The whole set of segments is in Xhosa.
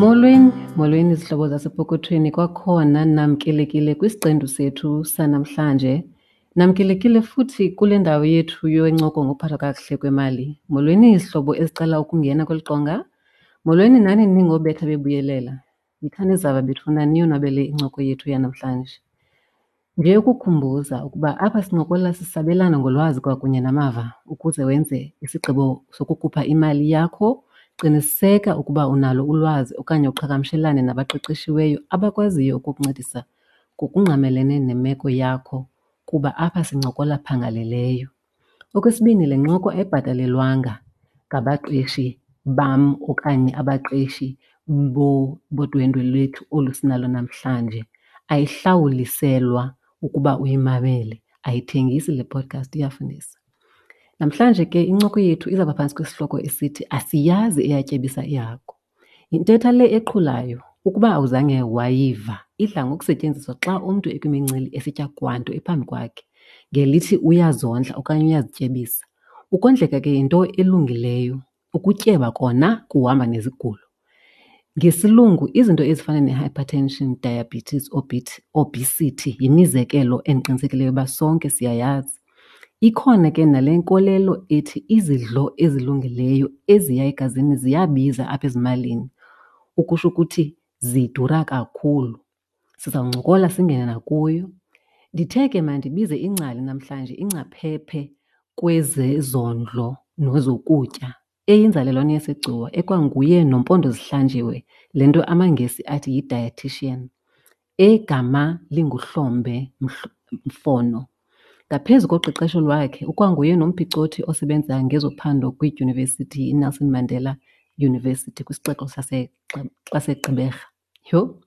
Molweni, molweni zihlobo zasepokothweni kwakhona namkelekile kwisiqendu sethu sanamhlanje. Namkelekile futhi kule ndawo yethu yencoko ngokuphathwa kakuhle kwemali. Molweni izihlobo ezicela ukungena kweli qonga. Molweni nani ningobetha bebuyelela. Yithani zava bethuna niyonwabele incoko yethu yanamhlanje. Nje ukukhumbuza ukuba apha sincokola sisabelana ngolwazi kwakunye namava ukuze wenze isigqibo sokukhupha imali yakho. Qiniseka ukuba unalo ulwazi okanye uqhagamshelane nabaqeqeshiweyo abakwaziyo ukukuncedisa ngokungqamelene nemeko yakho kuba apha sincokola phangaleleyo. Okwesibini, le ncoko ayibhatalelwanga ngabaqeshi bam okanye abaqeshi bodwendwe lwethu olu sinalo namhlanje. Ayihlawuliselwa ukuba uyimamele, ayithengisi le podcast iyafundisa. Namhlanje ke incoko yethu izawuba phantsi kwesihloko esithi asiyazi eyatyebisa ihagu. Yintetha le eqhulayo, ukuba awuzange wayiva, idla ngokusetyenziswa xa umntu ekwimincili esitya kwanto ephambi kwakhe ngelithi uyazondla okanye uyazityebisa. Ukondleka ke yinto elungileyo, ukutyeba kona kuhamba nezigulo. NgesiLungu izinto ezifana ne-hypertension, diabetes, obesity yimizekelo endiqinisekileyo uba sonke siyayazi. Ikhona ke nale nkolelo ethi izidlo ezilungileyo eziya egazini ziyabiza apha ezimalini, ukusho ukuthi zidura kakhulu. Sizawuncokola singene nakuyo. Ndithe ke mandibize ingcali namhlanje, ingcaphephe kwezezondlo nezokutya, eyinzalelwane yaseGcuwa ekwanguye noMpondozihlanjiwe, le nto amaNgesi athi yi-dietician, egama linguHlombe Mfono. Ngaphezu koqeqesho lwakhe, ukwanguye nomphicothi osebenza ngezophando kwiDyunivesithi iNelson Mandela University kwisixeko saseGqeberha. Yho!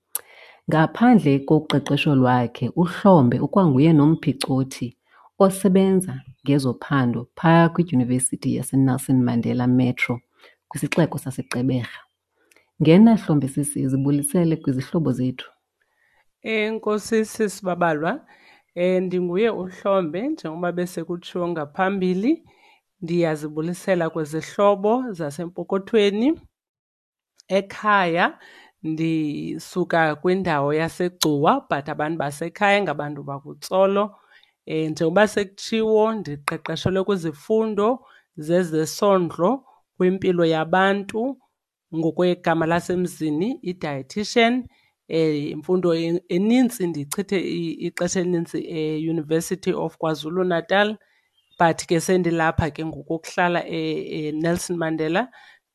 Ngaphandle koqeqesho lwakhe, uHlombe ukwanguye nomphicothi osebenza ngezophando phaya kwiDyunivesithi yaseNelson Mandela Metro kwisixeko saseGqeberha. Ngena Hlombe sisi, zibulisele kwizihlobo zethu. Enkosi sisi Babalwa. Ndinguye uHlombe njengoba besekutshiwo ngaphambili. Ndiyazibulisela kwizihlobo zasempokothweni. Ekhaya ndisuka kwindawo yaseGcuwa but abantu basekhaya ngabantu bakuTsolo. Njengoba sekutshiwo ndiqeqeshelwe kwizifundo zezesondlo kwimpilo yabantu, ngokwegama lasemzini i-dietician. Imfundo enintsi ndichithe ixesha elinintsi eUniversity of KwaZulu-Natal but ke sendilapha ke ngoku ukuhlala eNelson Mandela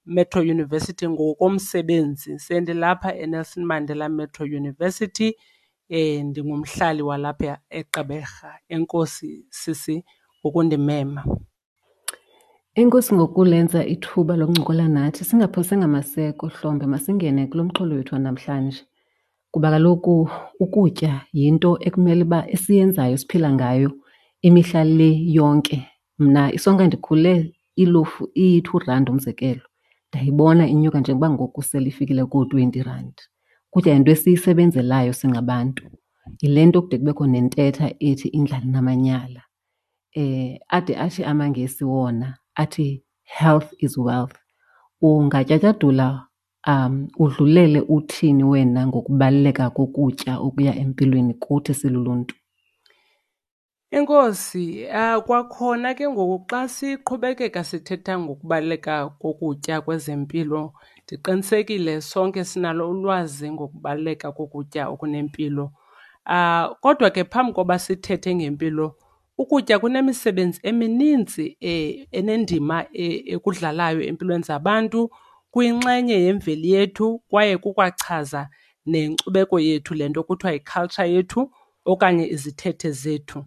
Metro University ngokomsebenzi. Sendilapha eNelson Mandela Metro University, ndingumhlali walapha eGqeberha. Enkosi sisi ngokundimema. Enkosi ngokulenza ithuba lokuncokola nathi. Singaphosanga maseko Hlombe, masingene kulo mxholo wethu wanamhlanje. Kuba kaloku ukutya yinto ekumele uba esiyenzayo esiphila ngayo imihla le yonke. Mna isonka ndikhule ilofu iyi-two rand umzekelo, ndayibona inyuka njengoba ngoku sele ifikile koo-twenty rand. Ukutya yinto esiyisebenzelayo singabantu. Yile nto kude kubekho nentetha ethi indlala inamanyala. Ade athi amaNgesi wona athi health is wealth. Ungatyatyadula udlulele uthini wena ngokubaluleka kokutya okuya empilweni kuthi siluluntu? Enkosi. Kwakhona ke ngoku xa siqhubekeka sithetha ngokubaluleka kokutya kwezempilo, ndiqinisekile sonke sinalo ulwazi ngokubaluleka kokutya okunempilo. Kodwa ke phambi koba sithethe ngempilo, ukutya kunemisebenzi emininzi enendima ekudlalayo empilweni zabantu, kuyinxenye yemveli yethu kwaye kukwachaza nenkcubeko yethu, le nto kuthiwa yi-culture yethu okanye izithethe zethu.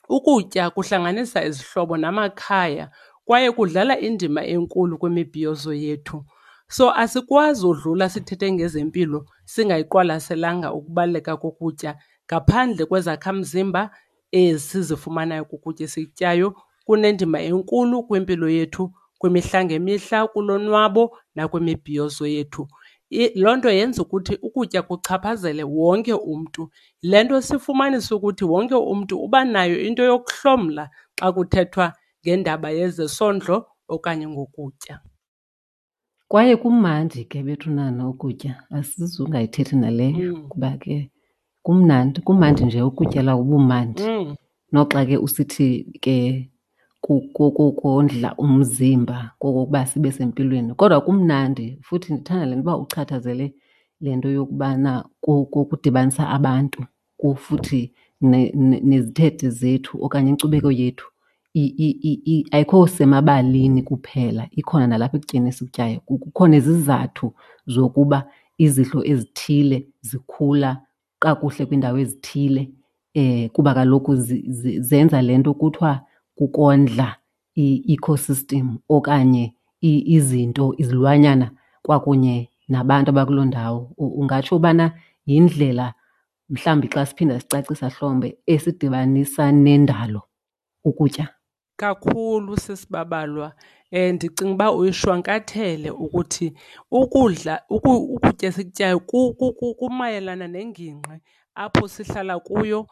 Ukutya kuhlanganisa izihlobo namakhaya kwaye kudlala indima enkulu kwimibhiyozo yethu. So asikwazi udlula sithethe ngezempilo singayiqwalaselanga ukubaluleka kokutya ngaphandle kwezakhamzimba ezi sizifumanayo kukutya esikutyayo. Kunendima enkulu kwimpilo yethu kwimihla ngemihla, kulonwabo nakwimibhiyozo yethu. Loo nto yenza ukuthi ukutya kuchaphazele wonke umntu. Yile nto sifumanisa ukuthi wonke umntu uba nayo into yokuhlomla xa kuthethwa ngendaba yezesondlo okanye ngokutya. Kwaye kumandi ke bethunana ukutya, asizungayithethi naleyo kuba ke kumnandi, kumandi nje ukutyela ubumandi. Noxa ke usithi ke kondla umzimba kokokuba sibe sempilweni, kodwa kumnandi. Futhi ndithanda le nto uba uchathazele le nto yokubana kudibanisa abantu futhi nezithethe zethu okanye inkcubeko yethu ayikho semabalini kuphela, ikhona nalapha ekutyeni esikutyayo. Kukho nezizathu zokuba izidlo ezithile zikhula kakuhle kwiindawo ezithile kuba kaloku zenza le nto kuthiwa kukondla i-ecosystem okanye izinto, izilwanyana kwakunye nabantu abakuloo ndawo. Ungatsho ubana yindlela mhlawumbi xa siphinda sicacisa Hlombe esidibanisa nendalo ukutya? Kakhulu sisibabalwa. Ndicinga uba uyishwankathele ukuthi ukudla, ukutya esikutyayo kumayelana nengingqi apho sihlala kuyo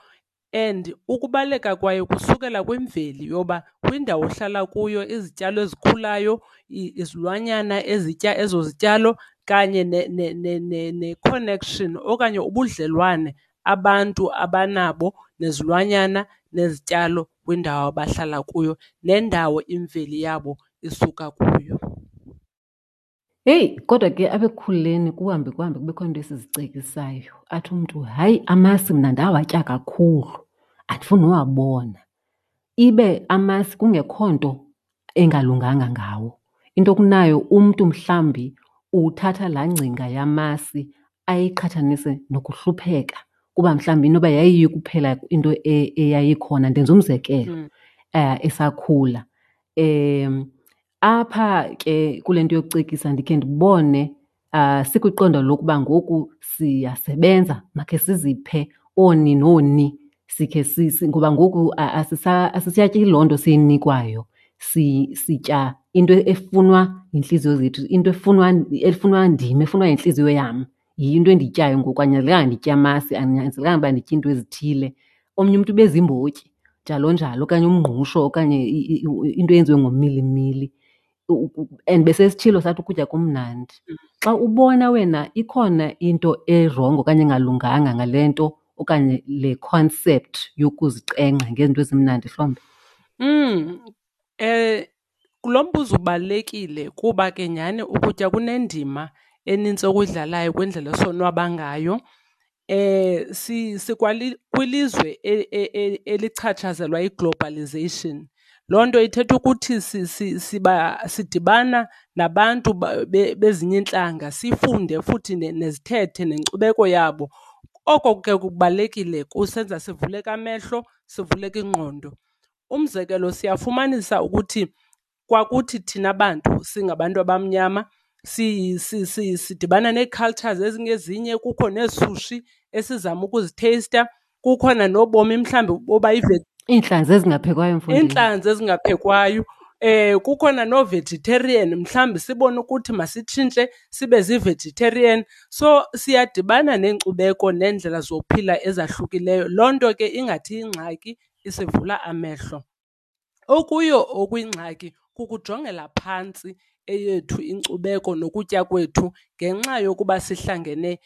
and ukubaluleka kwayo kusukela kwimveli yoba kwindawo ohlala kuyo izityalo ezikhulayo, izilwanyana ezitya ezo zityalo kanye ne-connection okanye ubudlelwane abantu abanabo nezilwanyana nezityalo kwindawo abahlala kuyo nendawo imveli yabo isuka kuyo. Heyi, kodwa ke apha ekukhuleni kuhambe kuhambe kubekho iinto esizicekisayo. Athi umntu, hayi amasi mna ndawatya kakhulu, andifuni nowabona. Ibe amasi kungekho nto engalunganga ngawo. Into okunayo umntu mhlawumbi uthatha laa ngcinga yamasi ayiqhathanise nokuhlupheka kuba mhlawumbi inoba yayiyo kuphela into eyayikhona. Ndenza umzekelo, esakhula. Apha ke kule nto yokucekisa ndikhe ndibone sikwiqondo lokuba ngoku siyasebenza, makhe siziphe ooni nooni sikhe ngoba ngoku asisatyi loo nto siyinikwayo. Sitya into efunwa yintliziyo zethu, into efunwa ndim, efunwa yintliziyo yam. Yiyo into endiyityayo ngoku, anyanzelekanga nditye amasi, andinyanzelekanga uba nditye iinto ezithile. Omnye umntu ube ziimbotyi njalo njalo okanye umngqusho okanye into eyenziwe ngomilimili. And besesitshilo sathi ukutya kumnandi. Xa ubona wena ikhona into erongo okanye engalunganga ngale nto okanye le concept yokuzicenga ngezinto ezimnandi Hlombe? Lo mbuzo ubalulekile kuba ke nyhani ukutya kunendima enintsi okuyidlalayo kwindlela esonwaba ngayo. Sikwilizwe elichatshazelwa yi-globalization. Loo nto ithetha ukuthi sidibana nabantu bezinye iintlanga sifunde futhi nezithethe nenkcubeko yabo. Oko ke kubalulekile kusenza sivuleke amehlo, sivuleke ingqondo. Umzekelo, siyafumanisa ukuthi kwakuthi thina bantu singabantu abamnyama sidibana nee-cultures ezingezinye, kukho neesushi esizama ukuzitheyista, kukhona nobomi mhlawumbi boba Iintlanzi ezingaphekwayo, mfondini. Iintlanzi ezingaphekwayo. Kukhona noo-vegetarian, mhlawumbi sibone ukuthi masitshintshe sibe zii-vegetarian. So siyadibana neenkcubeko neendlela zokuphila ezahlukileyo. Loo nto ke ingathi ingxaki isivula amehlo. Okuyo okuyingxaki kukujongela phantsi eyethu inkcubeko nokutya kwethu ngenxa yokuba sihlangene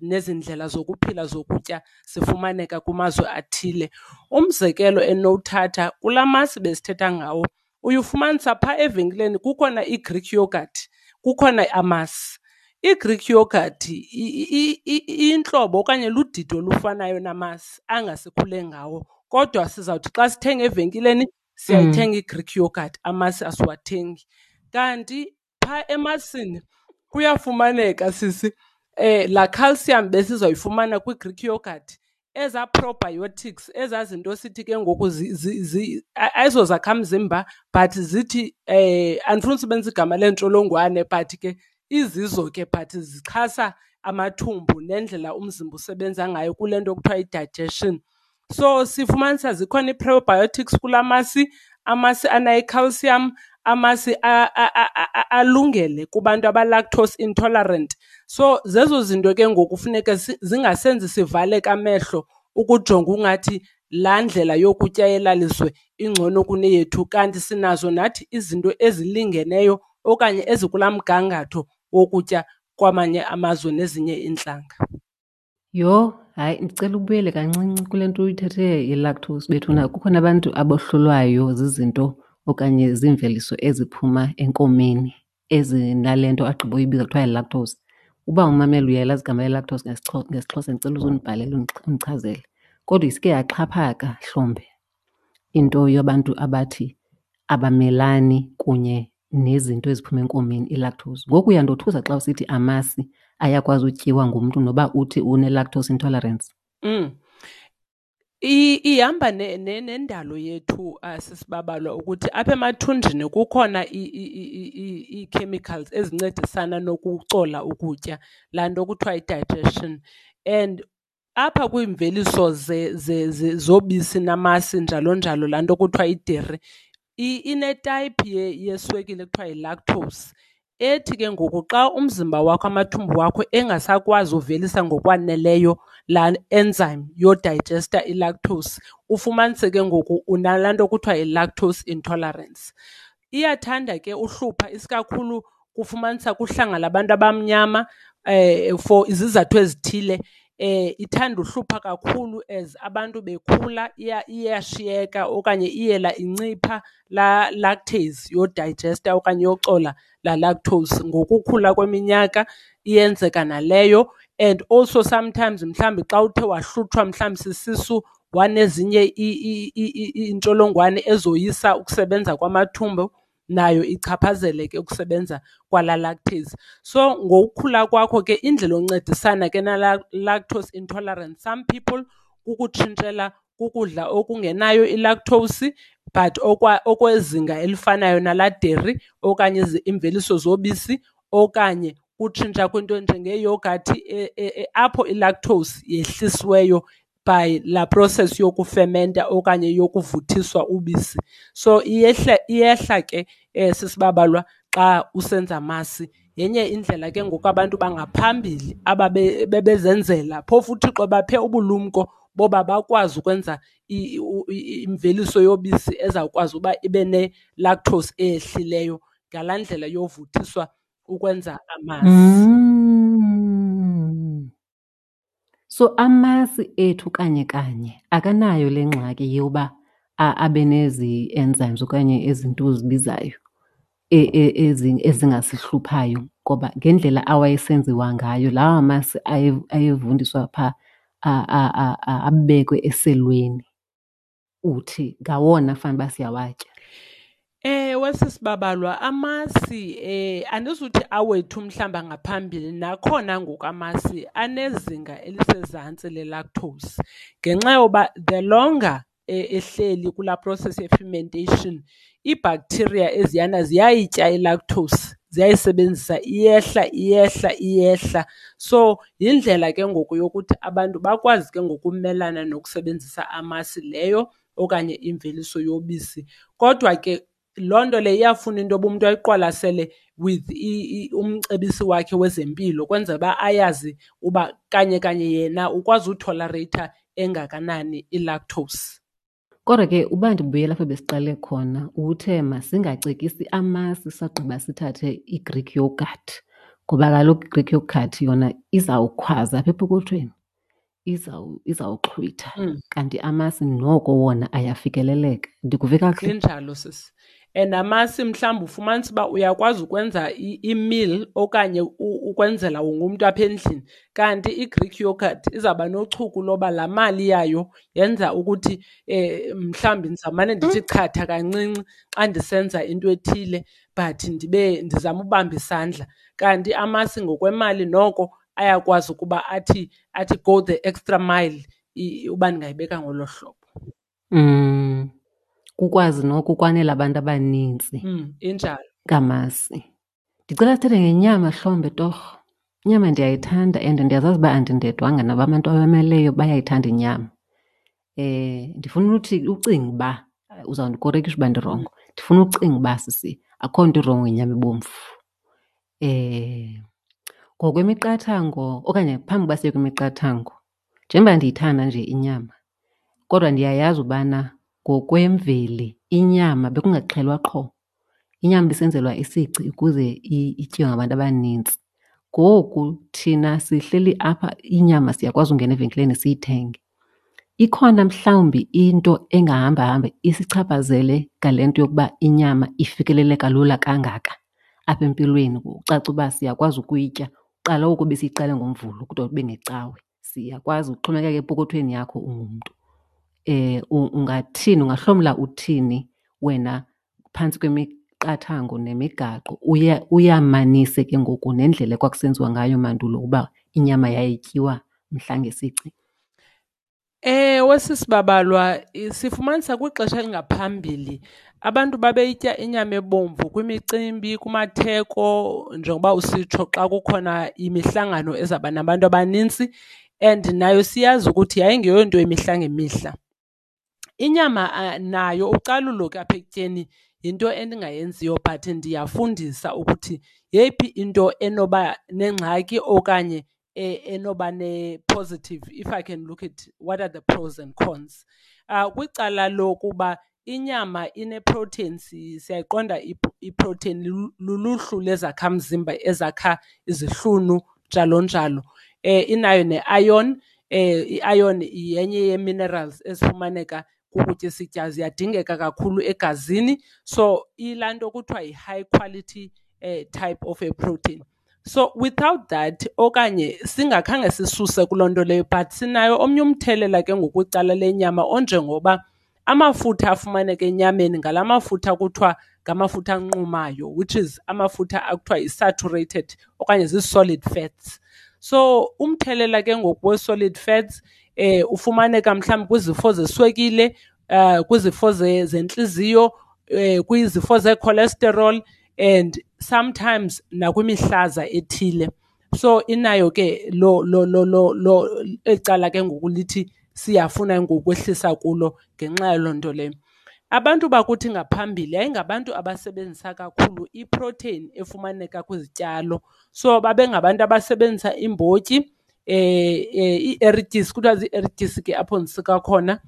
nezi ndlela zokuphila zokutya zifumaneka kumazwe athile. Umzekelo endinowuthatha kulaa masi besithetha ngawo, uye ufumanisa phaa evenkileni kukhona i-Greek yoghurt, kukhona amasi. I-Greek yoghurt iyintlobo okanye ludidi olufanayo namasi angasikhule ngawo, kodwa sizawuthi xa sithenga evenkileni siyayithenga i-Greek yoghurt, amasi asiwathengi. Kanti phaa emasini kuyafumaneka sisi laa calcium besizawuyifumana kwi-Greek yoghurt, ezaa probiotics, ezaa zinto sithi ke ngoku ayizozakhamzimba but zithi, andifuni usebenzisa igama leentsholongwane but ke izizo ke but zixhasa amathumbu nendlela umzimba usebenza ngayo kule nto kuthiwa yi-digestion. So sifumanisa zikhona ii-probiotics kulaa masi, amasi anayo i-calcium, amasi alungele kubantu aba-lactose intolerant. So zezo zinto ke ngoku funeka zingasenzi sivaleke amehlo ukujonga ungathi laa ndlela yokutya yelaa lizwe ingcono kuneyethu, kanti sinazo nathi izinto ezilingeneyo okanye ezikulaa mgangatho wokutya kwamanye amazwe nezinye iintlanga. Yho, hayi ndicela ubuyele kancinci kule nto uyithethe ye-lactose bethuna. Kukhona abantu abohlulwayo zizinto okanye ziimveliso eziphuma enkomeni ezinale nto agqiba uyibiza kuthiwa yi-lactose. Uba umamela uyalazi igama le-lactose ngesiXhosa ndicela uze undibhalele undichazele. Kodwa iske yaxhaphaka hlombe into yabantu abathi abamelani kunye nezinto eziphuma enkomeni, i-lactose. Ngoku uyandothusa xa usithi amasi ayakwazi utyiwa ngumntu noba uthi une-lactose intolerance. Ihamba nendalo yethu sisibabalwa ukuthi apha emathunjini kukhona ii-chemicals ezincedisana nokucola ukutya, laa nto kuthiwa yi-digestion. And apha kwiimveliso zobisi namasi njalo njalo, laa nto kuthiwa yideri, inetayiphi yeswekile ekuthiwa yi-lactose ethi ke ngoku xa umzimba wakho, amathumbu wakho engasakwazi uvelisa ngokwaneleyo laa enzyme yodayijesta i-lactose, ufumanise ke ngoku unalaa nto kuthiwa yi-lactose intolerance. Iyathanda ke uhlupha isikakhulu kufumanisa kuhlanga labantu abamnyama for izizathu ezithile. Ithanda uhlupha kakhulu as abantu bekhula, iyashiyeka okanye iyela incipha laa lactase yodayijesta okanye yocola laa lactose. Ngokukhula kweminyaka iyenzeka naleyo. And also sometimes mhlawumbi xa uthe wahlutshwa mhlawumbi sisisu wanezinye iintsholongwane ezoyisa ukusebenza kwamathumbu, nayo ichaphazele ke ukusebenza kwala lactase. So ngokukhula kwakho ke indlela oncedisana ke nala lactose intolerance, some people kukutshintshela kukudla okungenayo ilactose but okwezinga elifanayo nalaa deri okanye iimveliso zobisi, okanye kutshintsha kwinto enjengeyogathi apho ilactose yehlisiweyo by laa process yokufementa okanye yokuvuthiswa ubisi. So iyehla ke sisibabalwa xa usenza amasi. Yenye indlela ke ngoku abantu bangaphambili bebezenzela, phofu uThixo baphe ubulumko boba bakwazi ukwenza imveliso yobisi ezawukwazi uba ibe ne-lactose eyehlileyo ngalaa ndlela yovuthiswa ukwenza amasi. So amasi ethu kanye kanye akanayo le ngxaki yoba abe nezi enzymes okanye ezi nto uzibizayo ezingasihluphayo, ngoba ngendlela awayesenziwa ngayo lawa masi ayevundiswa phaa abekwe eselweni, uthi ngawona fanuba siyawatya. Ewe, sisibabalwa, amasi andizuthi awethu mhlawumbi angaphambili, nakhona ngoku amasi anezinga elisezantsi le-lactose ngenxa yoba the longer ehleli kulaa process ye-fermentation, iibacteria eziyana ziyayitya i-lactose, ziyayisebenzisa, iyehla, iyehla, iyehla. So yindlela ke ngoku yokuthi abantu bakwazi ke ngoku ukumelana nokusebenzisa amasi leyo okanye imveliso yobisi. Kodwa ke loo nto leyo iyafuna into yoba umntu ayiqwalasele with umcebisi wakhe wezempilo, kwenzela uba ayazi uba kanye kanye yena ukwazi utholareyitha engakanani i-lactose. Kodwa ke uba ndibuyela apho besiqale khona, uthe masingacekisi amasi sagqiba sithathe i-Greek yogurt, ngoba kaloku i-Greek yogurt yona izawukhwaza apha epokothweni, izawuxhwitha. Kanti amasi noko wona ayafikeleleka. Ndikuve kakuhle? Injalo, sisi. And amasi mhlawumbi ufumanisa uba uyakwazi ukwenza i-meal okanye ukwenzela wonke umntu apha endlini. Kanti i-Greek yogurt izawuba nochuku loba laa mali yayo yenza ukuthi mhlawumbi ndizawumane ndithi chatha kancinci xa ndisenza into ethile, but ndibe ndizama ubamba isandla. Kanti amasi ngokwemali noko ayakwazi ukuba athi go the extra mile, uba ndingayibeka ngolo hlobo. Kukwazi noko ukwanela abantu abanintsi. Injalo. Ngamasi. Ndicela sithethe ngenyama hlombe torho. Inyama ndiyayithanda and ndiyazazi uba andindedwanga, nabo abantu abameleyo bayayithanda inyama. Ndifuna uthi ucinga uba, uzawundikorekisha uba ndirongo, ndifuna ucinga uba sisi akho nto irongo ngenyama ebomvu. Ngokwemiqathango okanye phambi koba siye kwimiqathango, njengoba ndiyithanda nje inyama kodwa ndiyayazi ubana ngokwemveli inyama bekungaxhelwa qho. Inyama ibisenzelwa isici ukuze ityiwe ngabantu abanintsi. Ngoku thina sihleli apha inyama siyakwazi ungena evenkileni siyithenge. Ikhona mhlawumbi into engahamba hambe isichaphazele ngale nto yokuba inyama ifikeleleka lula kangaka apha empilweni, kucace uba siyakwazi ukuyitya? Kuqala oku besiyiqala ngoMvulo kude kube ngeCawe, siyakwazi kuxhomekeka epokothweni yakho ungumntu. Ungathini, ungahlomla uthini wena phantsi kwemiqathango nemigaqo uye uyamanise ke ngoku nendlela ekwakusenziwa ngayo mandulo uba inyama yayityiwa mhla ngesici? Ewe, sisibabalwa sifumanisa kwixesha elingaphambili abantu babeyitya inyama ebomvu kwimicimbi, kumatheko, njengoba usitsho xa kukhona imihlangano ezawuba nabantu abanintsi and nayo siyazi ukuthi yayingeyonto yemihla ngemihla. Inyama nayo ucalulo ke apha ekutyeni yinto endingayenziyo but ndiyafundisa ukuthi yeyiphi into enoba nengxaki okanye enoba ne-positive, if I can look at what are the pros and cons. Kwicala lokuba inyama ine-protein, siyayiqonda iprotein luluhlu lezakhamzimba ezakha izihlunu njalo njalo. Inayo ne-iron, i-iron yenye yee-minerals ezifumaneka kukutya esityayo, ziyadingeka kakhulu egazini. So iyilaa nto kuthiwa yi-high quality type of a protein. So without that okanye singakhange sisuse kuloo nto leyo but sinayo omnye umthelela ke ngoku kwicala lenyama onjengoba amafutha afumaneka enyameni ngala mafutha kuthiwa ngamafutha anqumayo, which is amafutha akuthiwa yi-saturated okanye zii-solid fats. So umthelela ke ngoku we-solid fats ufumaneka mhlawumbi kwizifo zeswekile, kwizifo zentliziyo, kwizifo zee-cholesterol and sometimes nakwimihlaza ethile. So inayo ke lo lo lo lo lo eli cala ke ngoku lithi siyafuna ngoku ukwehlisa kulo ngenxa yaloo nto leyo. Abantu bakuthi ngaphambili yayingabantu abasebenzisa kakhulu iprotheyini efumaneka kwizityalo. So babengabantu abasebenzisa iimbotyi, ii-erityisi, kuthiwa zii-erityisi ke apho ndisuka khona.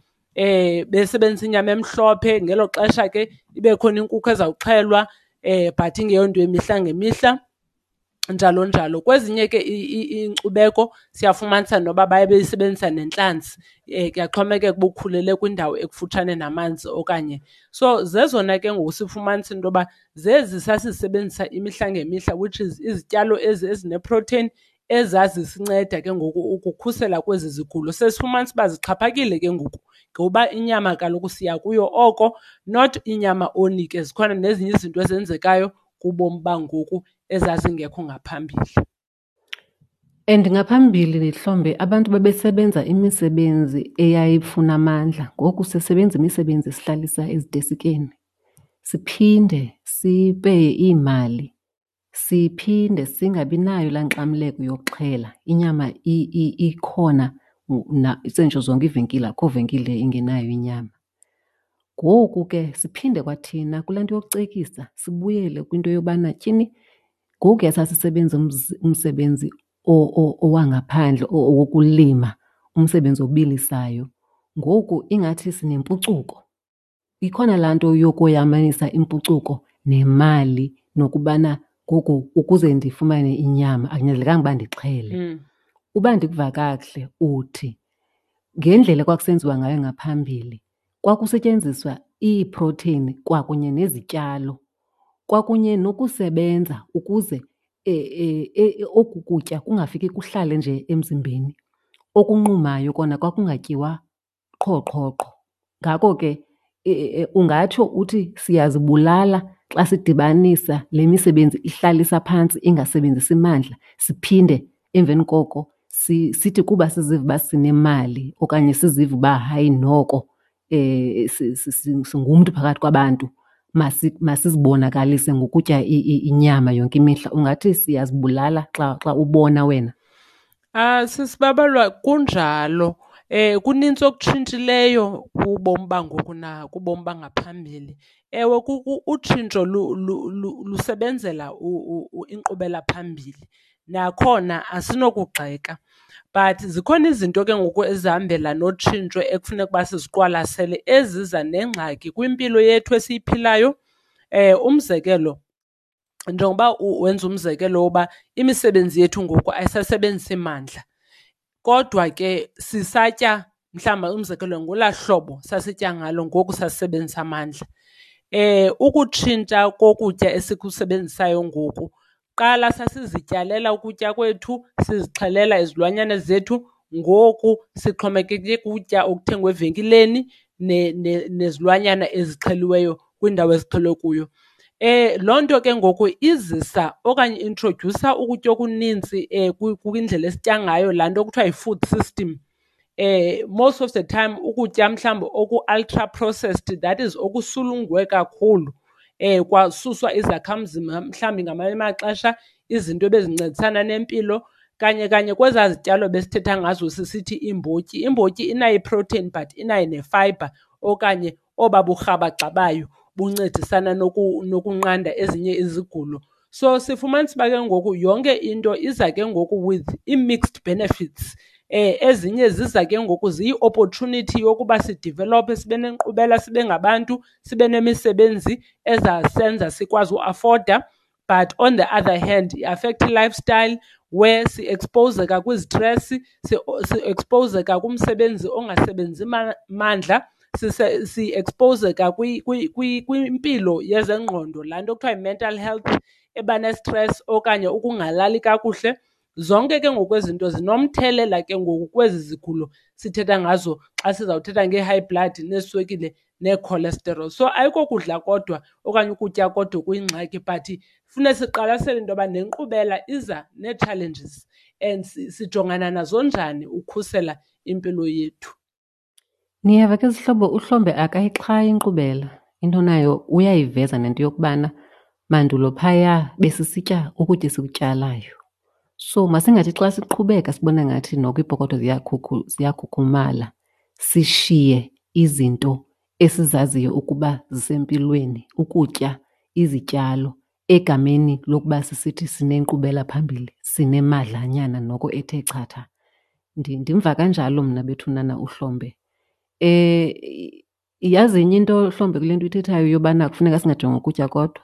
Besebenzisa inyama emhlophe, ngelo xesha ke ibe khona inkukhu ezawuxhelwa but ingeyonto yemihla ngemihla, njalo njalo. Kwezinye ke iinkcubeko siyafumanisa noba baye beyisebenzisa nentlanzi, kuyaxhomekeka uba ukhulele kwindawo ekufutshane namanzi okanye. So zezona ke ngoku sifumanisa into yoba zezi sasizisebenzisa imihla ngemihla, which is izityalo ezi ezineprotheyini ezazisinceda ke ngoku ukukhusela kwezi zigulo. Sesifumanisa uba zixhaphakile ke ngoku ngoba inyama kaloku siya kuyo oko, not inyama only ke, zikhona nezinye izinto ezenzekayo kubomi bangoku ezazingekho ngaphambili. And ngaphambili Hlombe abantu babesebenza imisebenzi eyayifuna amandla, ngoku sisebenza imisebenzi esihlalisa ezitesikeni. Siphinde sipeye iimali, siphinde singabi nayo laa nkxamleko yokuxhela. Inyama ikhona sentsho zonke iivenkile, akukho venkile ingenayo inyama. Ngoku ke siphinde kwathina kulaa nto yokucekisa sibuyele kwinto yobana tyhini ngokuya sasisebenza umsebenzi owangaphandle owokulima, umsebenzi obilisayo, ngoku ingathi sinempucuko. Ikhona laa nto yokoyamanisa impucuko nemali nokubana ngoku ukuze ndifumane inyama akunyanzelekanga uba ndixhele. Uba ndikuva kakuhle uthi ngendlela ekwakusenziwa ngayo ngaphambili kwakusetyenziswa iiprotheyini kwakunye nezityalo kwakunye nokusebenza ukuze oku kutya kungafiki kuhlale nje emzimbeni. Okunqumayo kona kwakungatyiwa qho qho qho. Ngako ke ungatsho uthi siyazibulala xa sidibanisa le misebenzi ihlalisa phantsi ingasebenzisi mandla, siphinde emveni koko sithi kuba siziva uba sinemali okanye siziva uba hayi noko singumntu phakathi kwabantu, masizibonakalise ngokutya inyama yonke imihla. Ungathi siyazibulala xa ubona wena? Sisibabalwa kunjalo. Kunintsi okutshintshileyo kubomi bangoku nakubomi bangaphambili. Ewe, utshintsho lusebenzela inkqubela phambili, nakhona asinokugxeka. But zikhona izinto ke ngoku ezihambela notshintsho ekufuneka uba siziqwalasele eziza nengxaki kwimpilo yethu esiyiphilayo. Umzekelo, njengoba wenza umzekelo woba imisebenzi yethu ngoku ayisasebenzisi mandla kodwa ke sisatya mhlawumbi umzekelo ngolaa hlobo sasitya ngalo ngoku sasisebenzisa amandla. Ukutshintsha kokutya esikusebenzisayo ngoku, kuqala sasizityalela ukutya kwethu, sizixhelela izilwanyana zethu, ngoku sixhomekeke kutya okuthengwa evenkileni nezilwanyana ezixheliweyo kwiindawo ezixhelwe kuyo. Loo nto ke ngoku izisa okanye i-introdyusa ukutya okunintsi kwindlela esitya ngayo, laa nto kuthiwa yi-food system. Most of the time ukutya mhlawumbi oku-ultra processed, that is okusulungwe kakhulu, kwasuswa izakhamzimba mhlawumbi ngamanye amaxesha izinto ebezincedisana nempilo. Kanye kanye kwezaa zityalo besithetha ngazo sisithi iimbotyi, imbotyi inayo iprotein but inayo nefayibha okanye oba burhabaxa bayo buncedisana nokunqanda ezinye izigulo. So sifumanisa uba ke ngoku yonke into iza ke ngoku with ii-mixed benefits. Ezinye ziza ke ngoku ziyi-opportunity yokuba sidivelophe, sibe nenkqubela, sibe ngabantu, sibe nemisebenzi ezasenza sikwazi uafoda. But on the other hand, i-affecta i-lifestyle where si-ekspowuzeka kwizitresi, si-ekspowuzeka kumsebenzi ongasebenzi mandla, si-ekspowuzeka kwimpilo yezengqondo, laa nto kuthiwa yi-mental health eba nestresi okanye ukungalali kakuhle. Zonke ke ngoku ezi zinto zinomthelela ke ngoku kwezi zigulo sithetha ngazo xa sizawuthetha ngee-high blood neeswekile nee-cholesterol. So ayikokudla kodwa okanye ukutya kodwa okuyingxaki, but funeka siqwalasele into yoba nenkqubela iza nee-challenges and sijongana nazo njani ukhusela impilo yethu. Niyeva ke zihlobo, uHlombe akayixhayi inkqubela. Into nayo uyayiveza nento yokubana mandulo phaya besisitya ukutya esikutyalayo. So masingathi xa siqhubeka sibona ngathi noko iipokotho ziyakhukhumala sishiye izinto esizaziyo ukuba zisempilweni, ukutya izityalo egameni lokuba sisithi sinenkqubela phambili, sinemadlanyana noko ethe chatha. Ndimva kanjalo mna bethunana uHlombe. Yazi enye into Hlombe kule nto uyithethayo yobana kufuneka singajongi ukutya kodwa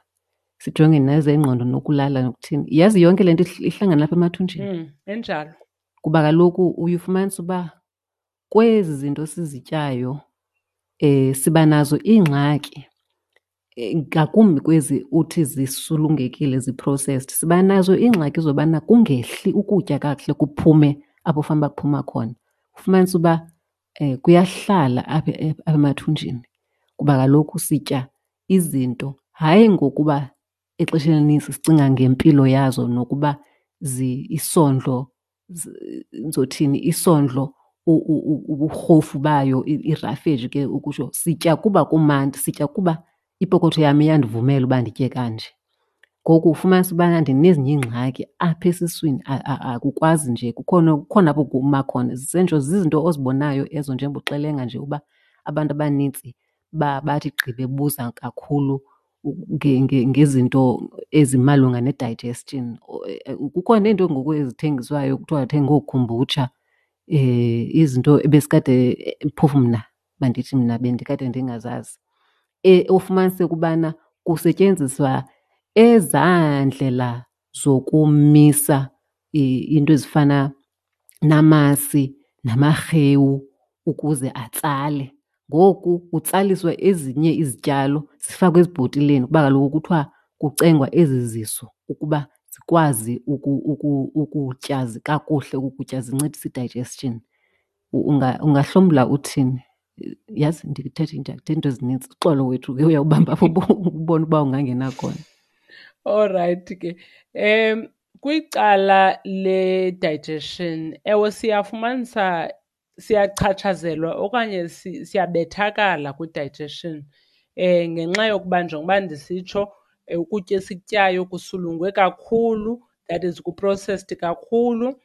sijonge nezengqondo nokulala nokuthini. Yazi yonke le nto ihlangana apha emathunjini. Injalo. Kuba kaloku uye ufumanise uba kwezi zinto sizityayo siba nazo iingxaki, ngakumbi kwezi uthi zisulungekile, zi-processed. Siba nazo iingxaki zobana kungehli ukutya kakuhle kuphume apho fanuba kuphuma khona. Ufumanise uba kuyahlala apha emathunjini kuba kaloku sitya izinto hayi ngokuba exesheni elinintsi sicinga ngempilo yazo nokuba isondlo, ndizothini, isondlo uburhofu bayo, irafeji ke ukutsho. Sitya kuba kumandi, sitya kuba ipokotho yam iyandivumela uba nditye kanje. Ngoku ufumanise ubana ndinezinye iingxaki apha esiswini, akukwazi nje, kukhona, kukhona apho kuma khona. Zisentsho zizinto ozibonayo ezo njengoba uxelenga nje uba abantu abanintsi bathi gqi bebuza kakhulu ngezinto ezimalunga ne-digestion. Kukho neento ngoku ezithengiswayo kuthiwa thenga ookhumbutsha, izinto ebesikade, phofu mna mandithi mna bendikade ndingazazi. Ufumanise ukubana kusetyenziswa ezaa ndlela zokumisa iinto ezifana namasi namarhewu ukuze atsale. Ngoku kutsaliswa ezinye izityalo zifakwe ezibhotileni kuba kaloku kuthiwa kucengwa ezi zisu ukuba zikwazi ukutya kakuhle ukutya, zinciphise i-digestion. Ungahlomla uthini? Yazi ndithethe ndithetha iinto ezinintsi. Uxolo wethu ke uyawubamba apho ubone uba ungangena khona. Olrayithi ke. Kwicala le-digestion, ewe siyafumanisa siyachatshazelwa okanye siyabethakala kwi-digestion ngenxa yokuba njengoba ndisitsho ukutya esikutyayo kusulungwe kakhulu, that is ku-processed kakhulu.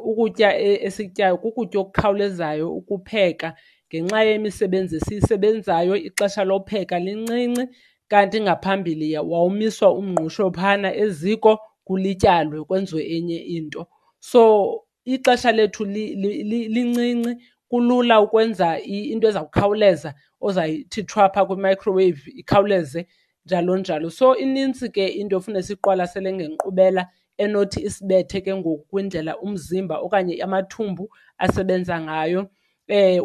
Ukutya esikutyayo kukutya okukhawulezayo ukupheka ngenxa yemisebenzi esiyisebenzayo, ixesha lopheka lincinci. Kanti ngaphambili wawumiswa umngqusho phana eziko kulityalwe kwenziwe enye into. So ixesha lethu lincinci, kulula ukwenza into eza kukhawuleza ozayithi thwa phaa kwi-microwave ikhawuleze. njalo njalo. So inintsi ke into efuna siyiqwalasele ngenkqubela enothi isibethe ke ngoku kwindlela umzimba okanye amathumbu asebenza ngayo.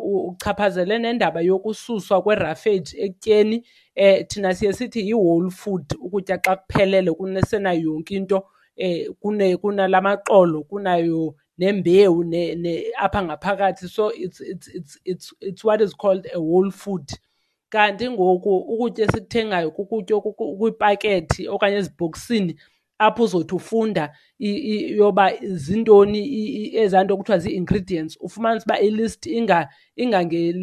Uchaphazele nendaba yokususwa kwerafeji ekutyeni. Thina siye sithi yi-whole food, ukutya xa kuphelele kusenayo yonke into, kunala maxolo, kunayo nembewu apha ngaphakathi. So it's what is called a whole food. Kanti ngoku ukutya esikuthengayo kukutya okukwiipakethi okanye ezibhokisini apho uzothi ufunda yoba zintoni ezaa nto kuthiwa zii-ingredients, ufumanise uba i-list ingange,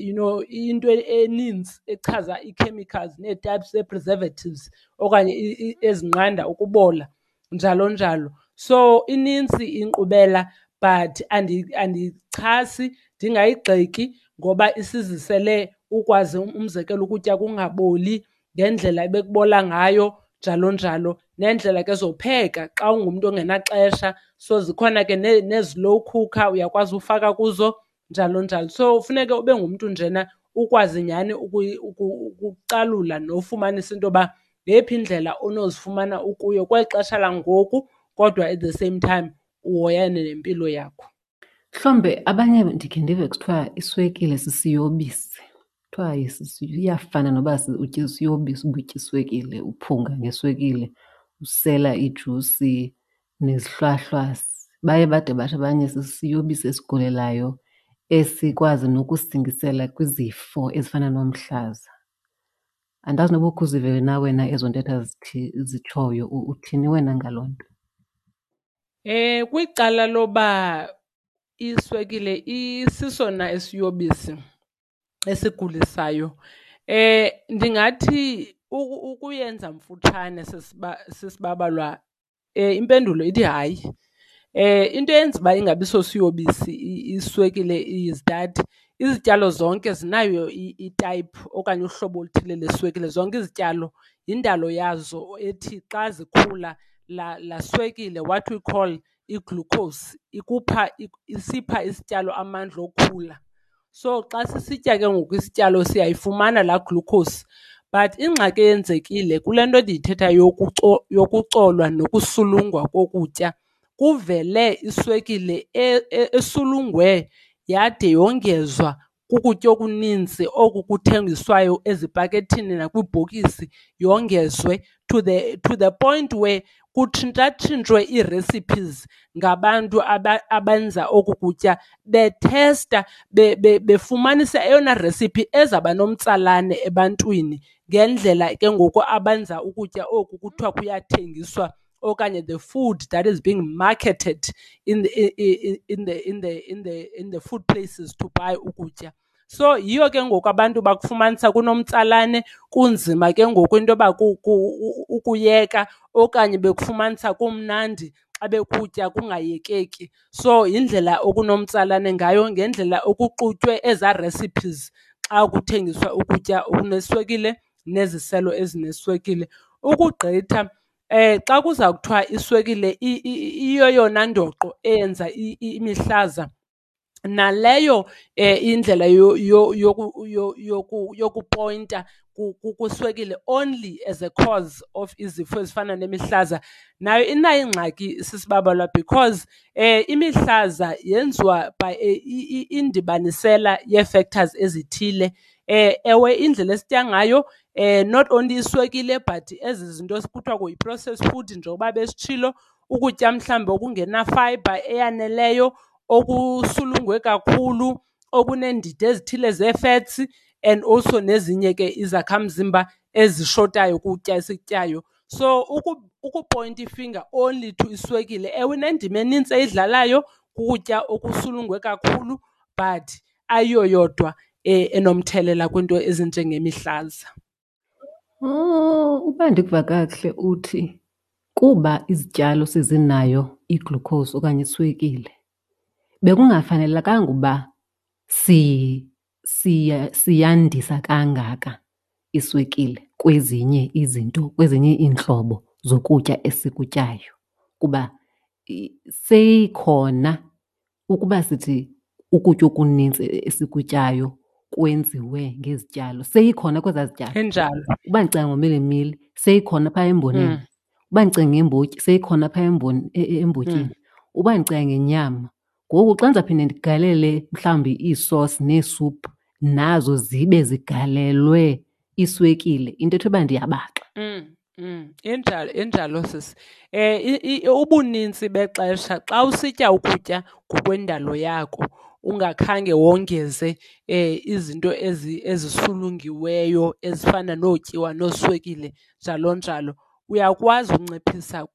you know, into enintsi echaza ii-chemicals nee-types zee-preservatives okanye ezinqanda ukubola, njalo njalo. So inintsi inkqubela but andiyichasi ndingayigxeki ngoba isizisele ukwazi umzekelo ukutya kungaboli ngendlela ebekubola ngayo, njalo njalo. Neendlela ke zopheka xa ungumntu ongenaxesha, so zikhona ke nee-slow cooker uyakwazi ufaka kuzo, njalo njalo. So funeke ube ngumntu njena ukwazi nyhani ukucalula nofumanisa into yoba ngeyiphi indlela onozifumana ukuyo kweli xesha langoku kodwa at the same time uhoyane nempilo yakho. Mhlawumbe abanye ndikhe ndive kuthiwa iswekile sisiyobisi. Kuthiwa iyafana noba utya isiyobisi uba utya iswekile, uphunga ngeswekile, usela ijusi nezihlwahlwasi. Baye bade bathi abanye sisiyobisi esigulelayo esikwazi nokusingisela kwizifo ezifana nomhlaza. Andazi noba ukhe uzive na wena ezo ntetha zitshoyo, uthini wena ngaloo nto? Kwicala loba iswekile isisona esiyobisi esigulisayo, ndingathi ukuyenza mfutshane sisibabalwa, impendulo ithi hayi. Into eyenza uba ingabi sosiyobisi iswekile is that izityalo zonke zinayo itayiphu okanye uhlobo oluthile leswekile. Zonke izityalo yindalo yazo ethi xa zikhula laa swekile, what we call i-glucose, isipha isityalo amandla okhula. So xa sisitya ke ngoku isityalo siyayifumana laa glucose. But ingxaki eyenzekile kule nto ndiyithethayo yokucolwa nokusulungwa kokutya, kuvele iswekile esulungwe yade yongezwa kukutya okuninzi oku kuthengiswayo ezipakethini nakwiibhokisi, yongezwe to the point where kutshintshatshintshwe ii-recipes ngabantu abenza oku kutya bethesta, befumanisa eyona recipe ezawuba nomtsalane ebantwini ngendlela ke ngoku abenza ukutya oku kuthiwa kuyathengiswa okanye the food that is being marketed in the food places to buy ukutya. So yiyo ke ngoku abantu bakufumanisa kunomtsalane, kunzima ke ngoku into yoba ukuyeka okanye bekufumanisa kumnandi xa bekutya kungayekeki. So yindlela okunomtsalane ngayo ngendlela okuxutywe ezaa recipes xa kuthengiswa ukutya okuneswekile neziselo ezineswekile. Ukugqitha xa kuza kuthiwa iswekile iyeyona ndoqo eyenza imihlaza, naleyo indlela yokupoyinta kwiswekile only as a cause of izifo ezifana nemihlaza, nayo inayo ingxaki sisibabalwa because imihlaza yenziwa by indibanisela yee-factors ezithile. Ewe, indlela esitya ngayo, not only iswekile but ezi zinto kuthiwa yi-processed food njengoba besitshilo, ukutya mhlawumbi okungena-fibre eyaneleyo, okusulungwe kakhulu, okuneendidi ezithile zee-fats and also nezinye ke izakhamzimba ezishotayo kutya esikutyayo. So ukupoyinta ifinger only to iswekile, ewe inendima enintsi eyidlalayo kukutya okusulungwe kakhulu, but ayiyo yodwa enomthelela kwiinto ezinjengemihlaza. Oh, uba ndikuva kakuhle uthi kuba izityalo sezinayo i-glucose okanye iswekile, bekungafanelekanga uba siyandisa kangaka iswekile kwezinye izinto, kwezinye iintlobo zokutya esikutyayo kuba seyikhona. Ukuba sithi ukutya okunintsi esikutyayo kwenziwe ngezityalo seyikhona kwezaa zityalo. Injalo. Uba ndicinga ngomilimili seyikhona phaa emboneni. Uba ndicinga ngembotyi seyikhona phaa embotyini. Uba ndicinga ngenyama, ngoku xa ndizawuphinda ndigalele mhlawumbi iisosi neesuphu nazo zibe zigalelwe iswekile, into ethe uba ndiyabaxa. Injalo, injalo sisi. Ubunintsi bexesha xa usitya ukutya ngokwendalo yako ungakhange wongeze izinto ezisulungiweyo ezifana nootyiwa nooswekile njalo njalo, uyakwazi unciphisa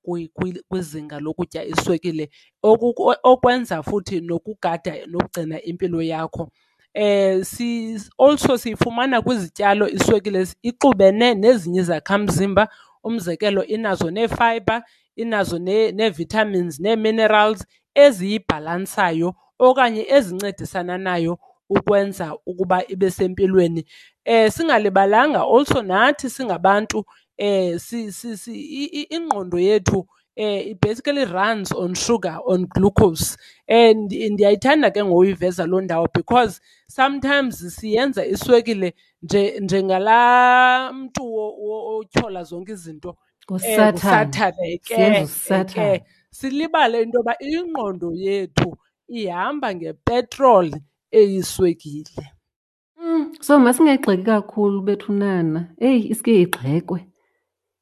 kwizinga lokutya iswekile, okwenza futhi nokugada nokugcina impilo yakho. Also siyifumana kwizityalo iswekile ixubene nezinye izakhamzimba. Umzekelo, inazo nee-fibre, inazo nee-vitamins nee-minerals eziyibhalansayo okanye ezincedisana nayo ukwenza ukuba ibe sempilweni. Singalibalanga also nathi singabantu, ingqondo yethu it basically runs on sugar, on glucose. Ndiyayithanda ke ngoyiveza loo ndawo because sometimes siyenza iswekile njengalaa mntu otyhola zonke izinto. Ngusathane. Ngusathane ke, Siyenza usathane. ke. Silibale into yoba ingqondo yethu ihamba ngepetroli eyiswekile. So masingayigxeki kakhulu bethunana. Eyi, iske igxekwe.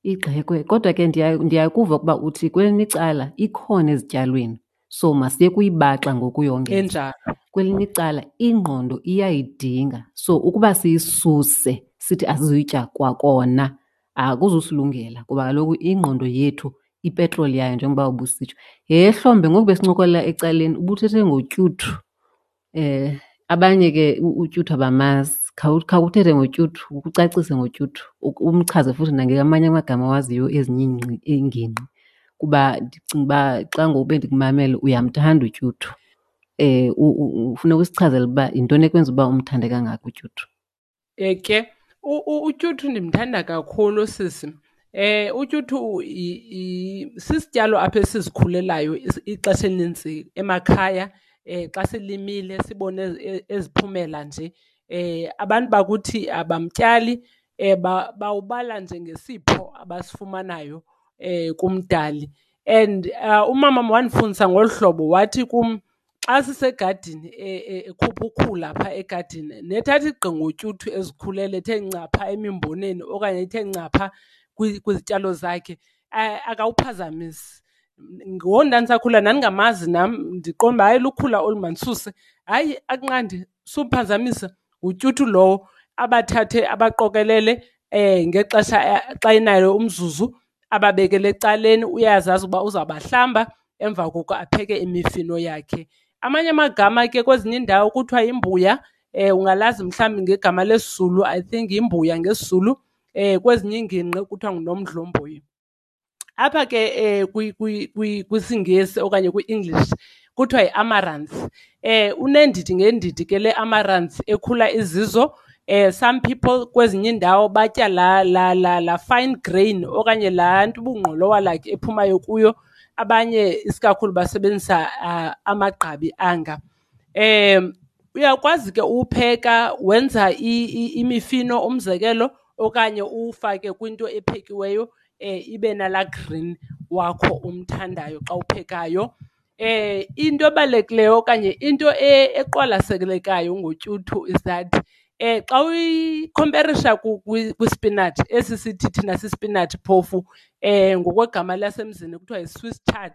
Igxekwe. Kodwa ke ndiyakuva ukuba uthi kwelinye icala ikhona ezityalweni. So masiye kuyibaxa ngokuyongeza. Enjalo. Kwelinye icala ingqondo iyayidinga. So ukuba siyisuse sithi asizuyitya kwakona akuzusilungela kuba kaloku ingqondo yethu ipetroli yayo njengoba ubusitsho. Yhe Hlombe, ngoku besincokolela ecaleni ubuthethe ngotyuthu. Abanye ke utyuthu abamazi. Khawuthethe ngotyuthu, ucacise ngotyuthu, umchaze futhi nangamanye amagama awaziyo ezinye iingingqi. Kuba ndicinga uba xa ngoku bendikumamele uyamthanda utyuthu. Ufuna ukusichazela uba yintoni ekwenza uba umthande kangaka utyuthu? Ke, utyuthu ndimthanda kakhulu sisi. Utyuthu sisityalo apha esizikhulelayo ixesha elinintsi emakhaya. Xa silimile sibone eziphumela nje. Abantu bakuthi abamtyali, bawubala njengesipho abasifumanayo kumdali. And umama wandifundisa ngolu hlobo, wathi kum xa sisegadini, ekhupha ukhula phaa egadini, nethatha igqi ngotyuthu ezikhulele ethe nca phaa emimboneni okanye ethe nca phaa kwizityalo zakhe, akawuphazamisi. Ngoku ndandisakhula ndandingamazi nam, ndiqonda uba hayi lukhula olu mandisuse. Hayi, akunqandi, sumphazamisa, ngutyuthu lowo. Abathathe abaqokelele ngexesha xa enayo umzuzu, ababekele ecaleni, uyazazi uba uzawubahlamba, emva koko apheke imifino yakhe. Amanye amagama ke kwezinye iindawo kuthiwa yimbuya, ungalazi mhlawumbi ngegama lesiZulu, I think yimbuya ngesiZulu, kwezinye iingingqi kuthiwa ngunomdlomboyi. Apha ke kwisiNgesi okanye kwi-English kuthiwa yi-amaranth. Uneendidi ngeendidi ke le amaranth ekhula izizo. Some people kwezinye iindawo batya la fine grain okanye laa nto ubungqolowa like ephumayo kuyo. Abanye isikakhulu basebenzisa amagqabi anga. Uyakwazi ke uwupheka wenza imifino umzekelo okanye uwufake kwinto ephekiweyo, ibe nalaa green wakho umthandayo xa uphekayo. Into ebalulekileyo okanye into eqwalaselekayo ngotyuthu is that xa uyikhomperisha kwispinatshi, esi sithi thina sispinatshi phofu, ngokwegama lasemzini kuthiwa yi-Swiss chard.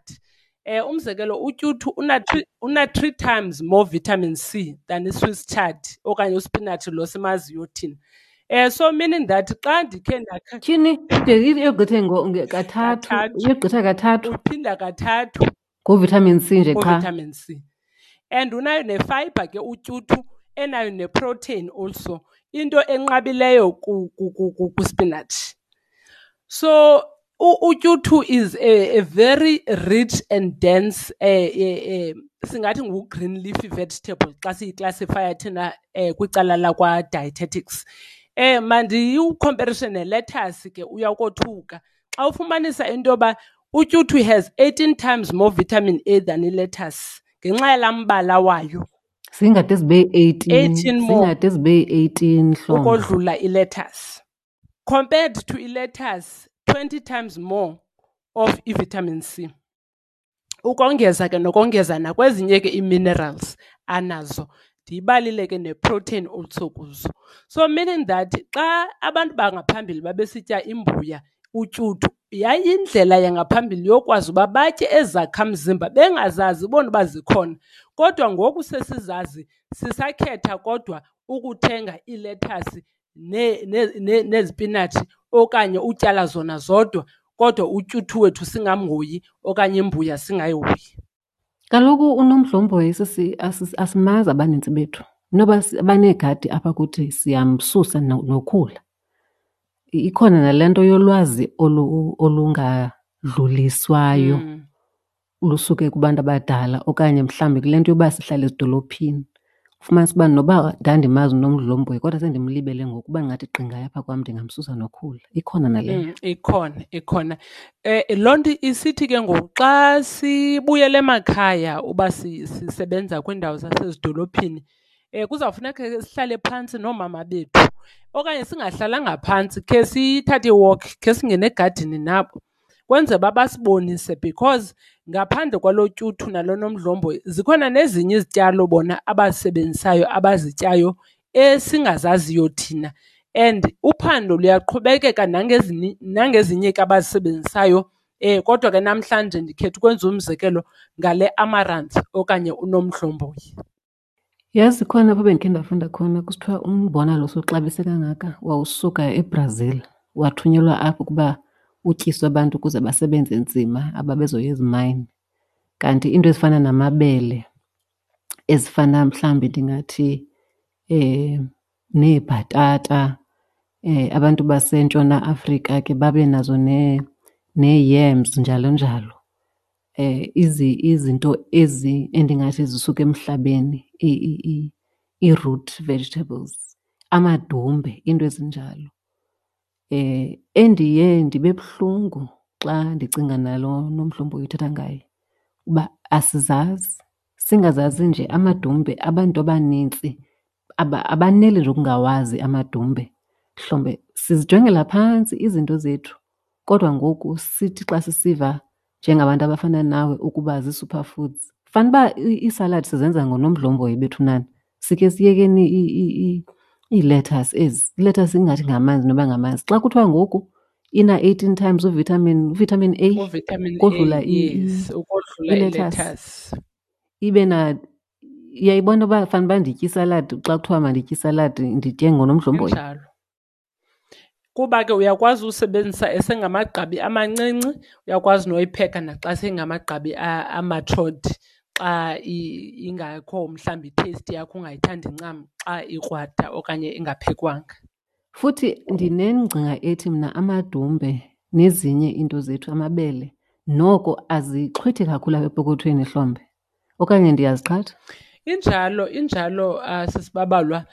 Umzekelo utyuthu una 3 times more vitamin C than i-Swiss chard okanye uspinatshi lo simaziyo thina. So meaning that xa ndikhe ndakha Tyhini, ide iyogqithe kathathu, Kathathu. iyogqitha kathathu. Uphinda kathathu. Ngovitamin C nje qha. Ngovitamin C. And unayo nefiber ke utyuthu, enayo neprotein also, into enqabileyo kwispinatshi. So utyuthu is a very rich and dense, singathi ngu-green leafy vegetable xa siyiclassifya thina kwicala lakwa-dietetics. Mandiyikhomperishe ne-lettuce ke, uyawukothuka xa ufumanisa into yoba utyuthu has 18 times more vitamin A than i-lettuce ngenxa yalaa mbala wayo. Zingade zibe 18, 18 more. Zingade zibe 18 Hlombe. Ukodlula i-lettuce. Compared to i-lettuce, 20 times more of i-vitamin C. Ukongeza ke nokongeza nakwezinye ke ii-minerals anazo. Ndiyibalile ke ne-protein also kuzo. So meaning that xa abantu bangaphambili babesitya imbuya, utyuthu, yayindlela yangaphambili yokwazi uba batye ezakhamzimba bengazazi bona uba zikhona. Kodwa ngoku sesizazi, sisakhetha kodwa ukuthenga iilethasi nezipinatshi okanye utyala zona zodwa, kodwa utyuthu wethu singamhoyi okanye imbuya singayihoyi. Kaloku uNomdlomboyi sisi asimazi abanintsi bethu. Noba abaneegadi apha kuthi siyamsusa nokhula. Ikhona nale nto yolwazi olungadluliswayo lusuke kubantu abadala okanye mhlawumbi kule nto yoba sihlala ezidolophini. Ufumanise uba noba ndandimazi uNomdlomboyi kodwa sendimlibele ngoku, uba ndingathi gqi ngaye apha kwam ndingamsusa nokhula. Ikhona naleyo. Ikhona, ikhona. Loo nto isithi ke ngoku xa sibuyela emakhaya uba sisebenza kwiindawo zasezidolophini, kuzawufuneka ke sihlale phantsi noomama bethu okanye singahlalanga phantsi, khe sithathe i-walk, khe singene egadini nabo kwenzela uba basibonise, because ngaphandle kwalo tyuthu nalo nomdlomboyi zikhona nezinye izityalo bona abazisebenzisayo, abazityayo esingazaziyo thina. And uphando luyaqhubekeka nangezinye ke abazisebenzisayo. Kodwa ke namhlanje ndikhetha ukwenza umzekelo ngale amaranth okanye unomdlomboyi. Yazi khona apho bendikhe ndafunda khona kusithiwa umbona lo sowuxabise kangaka wawusuka eBrazil, wathunyelwa apho ukuba utyiswe abantu ukuze basebenze nzima ababezoya ezimayini. Kanti iinto ezifana namabele, ezifana mhlawumbi ndingathi neebhatata, abantu baseNtshona Afrika ke babe nazo nee-yams njalo njalo. Izinto ezi endingathi zisuka emhlabeni, ii-root vegetables, amadumbe, iinto ezinjalo. Endiye ndibe buhlungu xa ndicinga nalo Nomdlomboyi uthetha ngaye uba asizazi, singazazi nje amadumbe. Abantu abanintsi abaneli nje ukungawazi amadumbe. Mhlawumbe sizijongela phantsi izinto zethu, kodwa ngoku sithi xa sisiva njengabantu abafana nawe ukuba zii-superfoods, fanuba iisaladi sizenza ngonomdlomboyi bethu nani. Sikhe siyekeni ii-lettuce ezi. I-lettuce ingathi ngamanzi noba ngamanzi. Xa kuthiwa ngoku ina-18 times uvitamin A, Uvitamin A, ukodlula yes, ukodlula i-lettuce. i-lettuce. Ibe na, uyayibona uba fanuba nditye isaladi, xa kuthiwa manditye isaladi nditye ngonomdlomboyi. Injalo. Kuba ke uyakwazi usebenzisa esengamagqabi amancinci, uyakwazi noyipheka naxa sengamagqabi amatured, xa ingakho mhlawumbi i-taste yakho ungayithandi ncam xa ikrwada okanye ingaphekwanga. Futhi ndinengcinga ethi mna amadumbe nezinye iinto zethu, amabele, noko azixhwithi kakhulu apha epokothweni Hlombe, okanye ndiyaziqhatha? Injalo, injalo, sisibabalwa.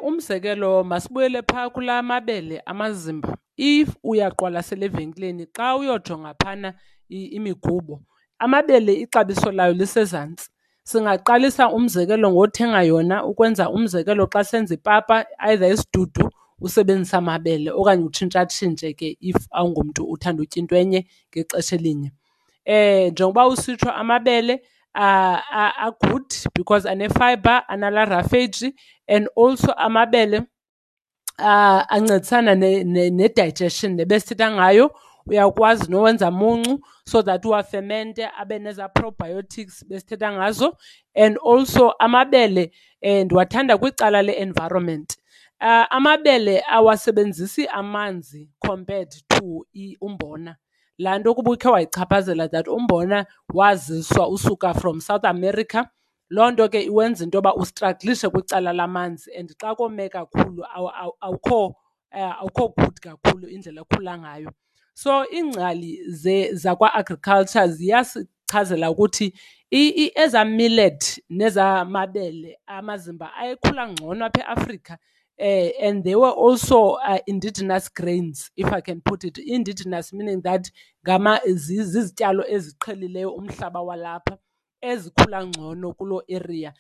Umzekelo, masibuyele phaa kulaa mabele amazimba. If uyaqwalasela evenkileni, xa uyojonga phana imigubo, amabele ixabiso layo lisezantsi. Singaqalisa umzekelo ngothenga yona ukwenza umzekelo xa senza ipapa, either isidudu, usebenzisa amabele okanye utshintshatshintshe ke if awungomntu uthanda utya into enye ngexesha elinye. Njengoba usitsho amabele a-good because ane-fiber, anala roughage, and also amabele ancedisana ne-digestion nebesithetha ngayo. Uyakwazi nowenza muncu so that uwafemente abe nezaa probiotics besithetha ngazo. And also amabele ndiwathanda kwicala le-environment. Amabele awasebenzisi amanzi compared to umbona. Laa nto kuba ukhe wayichaphazela that umbona waziswa usuka from South America, loo nto ke iwenza into yoba ustraglishe kwicala lamanzi, and xa kome kakhulu awukho good kakhulu indlela okhula ngayo. So iingcali zakwa-agriculture ziyasichazela ukuthi ezaa millet nezaa mabele amazimba ayekhula ngcono apha eAfrika. And they were also indigenous grains, if I can put it. Indigenous meaning that zizityalo eziqhelileyo umhlaba walapha. ezikhula ngcono kuloo area.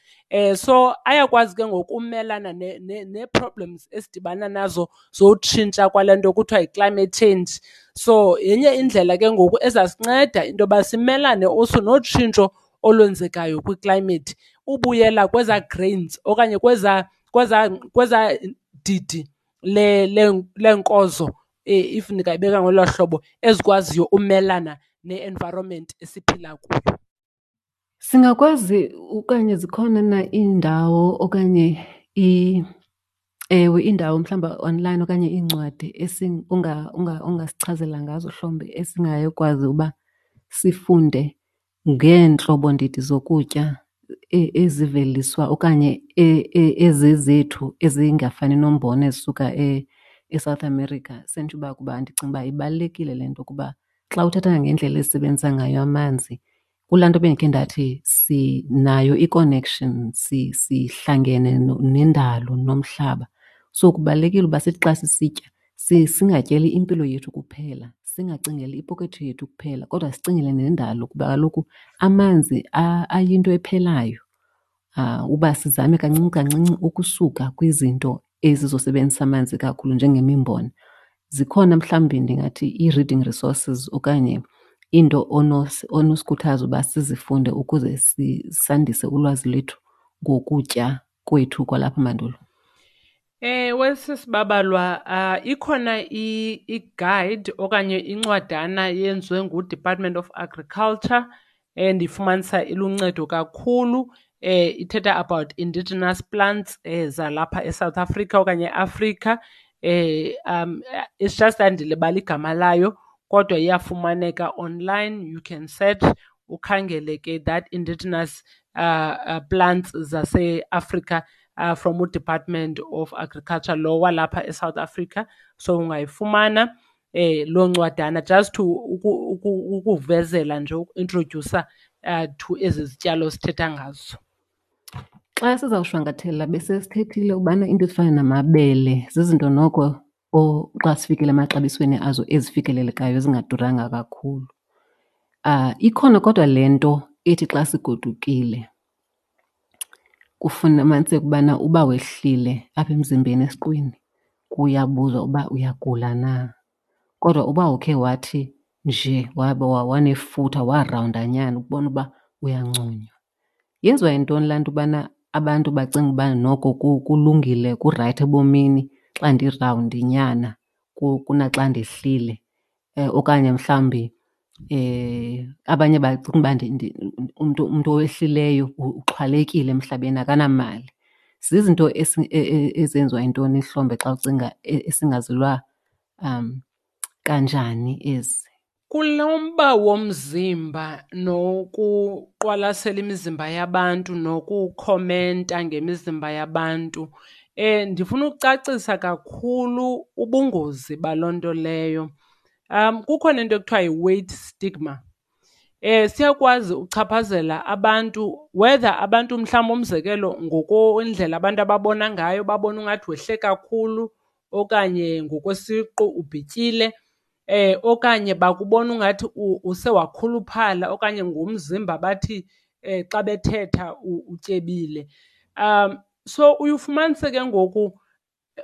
So ayakwazi ke ngoku umelana nee-problems esidibana nazo zotshintsha kwale nto kuthiwa yi-climate change. So yenye indlela ke ngoku ezasinceda into yoba simelane also notshintsho olwenzekayo kwi-climate, ubuyela kwezaa grains okanye kwezaa didi leenkozo, if ndingayibeka ngolo hlobo, ezikwaziyo umelana ne-environment esiphila kuyo. Singakwazi okanye zikhona na iindawo okanye ewe iindawo mhlawumbi online okanye iincwadi ongasichazela ngazo mhlawumbi esingayokwazi uba sifunde ngeentlobondidi zokutya eziveliswa okanye ezezethu ezingafani nombona ezisuka eSouth America? Senditsho uba kuba ndicinga uba ibalulekile le nto kuba xa uthetha ngendlela esisebenzisa ngayo amanzi, kulaa nto bendikhe ndathi sinayo i-connection, sihlangene nendalo nomhlaba. So kubalulekile uba sithi xa sisitya singatyeli impilo yethu kuphela, singacingeli ipokotho yethu kuphela kodwa sicingele nendalo kuba kaloku amanzi ayinto ephelayo. Uba sizame kancinci kancinci ukusuka kwizinto ezizosebenzisa amanzi kakhulu njengemimbona. Zikhona mhlawumbi ndingathi ii-reading resources okanye iinto onosikhuthaza uba sizifunde ukuze sandise ulwazi lwethu ngokutya kwethu kwalapha mandulo? Ewe, sisi Babalwa, ikhona i-guide okanye incwadana eyenziwe nguDepartment of Agriculture endifumanisa iluncedo kakhulu. Ithetha about indigenous plants zalapha eSouth Africa okanye eAfrika. It's just that ndilibale igama layo kodwa iyafumaneka online, you can search ukhangele ke that indigenous plants zaseAfrika from uDepartment of Agriculture lo walapha eSouth Africa. So ungayifumana loo ncwadana just to ukuvezela nje, ukuintrodyusa to ezi zityalo sithetha ngazo. Xa sizawushwankathela besesithethile ubana iinto ezifana namabele zizinto noko xa sifikele emaxabisweni azo ezifikelelekayo ezingaduranga kakhulu. Ikhona kodwa le nto ethi xa sigodukile kufumaniseke ubana uba wehlile apha emzimbeni esiqwini kuyabuzwa uba uyagula na. Kodwa uba ukhe wathi nje wanefutha warawundanyana ukubona uba uyanconywa. Yenziwa yintoni laa nto ubana abantu bacinga uba noko kulungile kurayithi ebomini xa ndirawundinyana kunaxa ndehlile? Okanye mhlawumbi abanye bacinga uba umntu owehlileyo uxhwalekile emhlabeni akanamali. Zizinto ezenziwa yintoni hlombe xa ucinga esingazilwa kanjani ezi? Kulo mba womzimba nokuqwalasela imizimba yabantu nokukhomenta ngemizimba yabantu, ndifuna ukucacisa kakhulu ubungozi baloo nto leyo. Kukhona into ekuthiwa yi-weight stigma. Siyakwazi uchaphazela abantu, whether abantu mhlawumbi umzekelo ngokwendlela abantu ababona ngayo, babone ungathi wehle kakhulu okanye ngokwesiqu ubhityile, okanye bakubona ungathi use wakhuluphala okanye ngomzimba bathi xa bethetha utyebile. So uye ufumanise ke ngoku,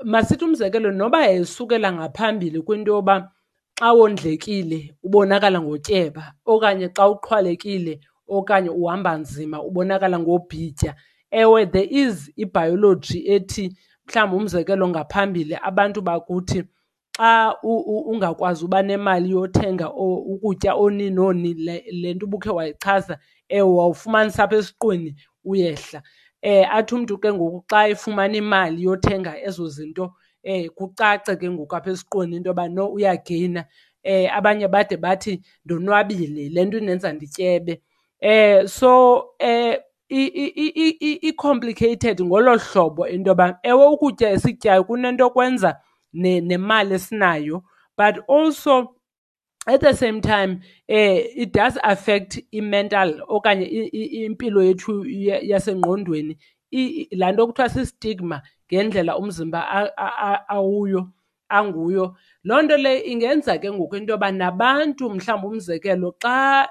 masithi umzekelo noba yayisukela ngaphambili kwinto yoba xa wondlekile ubonakala ngotyeba okanye xa uxhwalekile okanye uhamba nzima ubonakala ngobhitya. Ewe, there is ibhayoloji ethi mhlawumbi umzekelo ngaphambili abantu bakuthi xa ungakwazi uba nemali yothenga ukutya oni noni, le nto ubukhe wayichaza, ewe, wawufumanisa apha esiqwini uyehla. Athi umntu ke ngoku xa efumana imali yothenga ezo zinto, kucace ke ngoku apha esiqwini into yoba no uyageyina. Abanye bade bathi ndonwabile, le nto indenza ndityebe. So i-complicated ngolo hlobo into yoba ewe ukutya esikutyayo kunento kwenza nemali esinayo, but also at the same time it does affect i-mental okanye impilo yethu yasengqondweni. Laa nto kuthiwa si-stigma ngendlela umzimba awuyo. anguyo. Loo nto leyo ingenza ke ngoku into yoba nabantu mhlawumbi umzekelo xa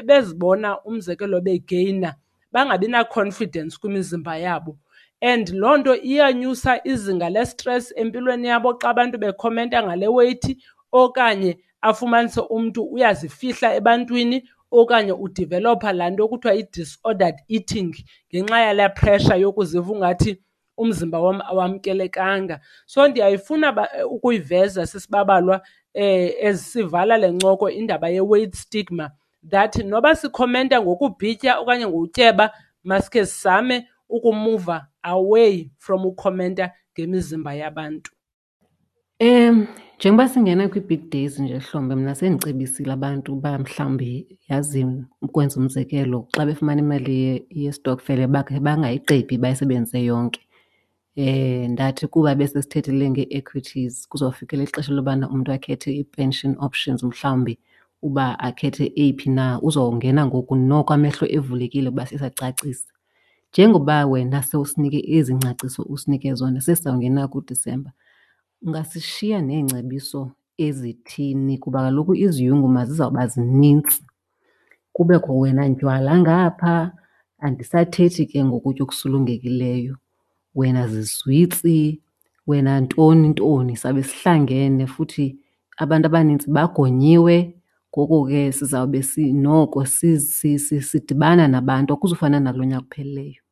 bezibona umzekelo begeyina bangabi na-confidence kwimizimba yabo. And loo nto iyanyusa izinga lestresi empilweni yabo xa abantu bekhomenta ngale weyithi okanye afumanise umntu uyazifihla ebantwini okanye udivelopha laa nto kuthiwa yi-disordered eating ngenxa yalaa pressure yokuziva ungathi umzimba wam awamkelekanga. So ndiyayifuna ukuyiveza sisibabalwa ezisivala le ncoko indaba ye-weight stigma that noba sikhomenta ngokubhitya okanye ngokutyeba masikhe sizame ukumuva away from ukhomenta ngemizimba yabantu. Njengoba singena kwii-big days nje Hlombe, mna sendicebisile abantu uba mhlawumbi yazi ukwenza umzekelo xa befumana imali yestokfela bakhe bangayigqibi bayisebenzise yonke. Ndathi kuba besesithethile ngee-equities kuzawufikelela ixesha lobana umntu akhethe ii-pension options mhlawumbi uba akhethe eyiphi na, uzawungena ngoku noko amehlo evulekile kuba sisacacisa. Njengoba wena sewusinike ezi ngcaciso usinike zona sesizawungena kuDisemba, ungasishiya neengcebiso ezithini? Kuba kaloku iziyunguma zizawuba zinintsi, kubekho wena ndywala ngapha, andisathethi ke ngokutya okusulungekileyo, wena zizwitsi, wena ntoni ntoni. Sawube sihlangene futhi abantu abanintsi bagonyiwe, ngoko ke sizawube noko sidibana nabantu, akuzufana nalo nyaka uphelileyo.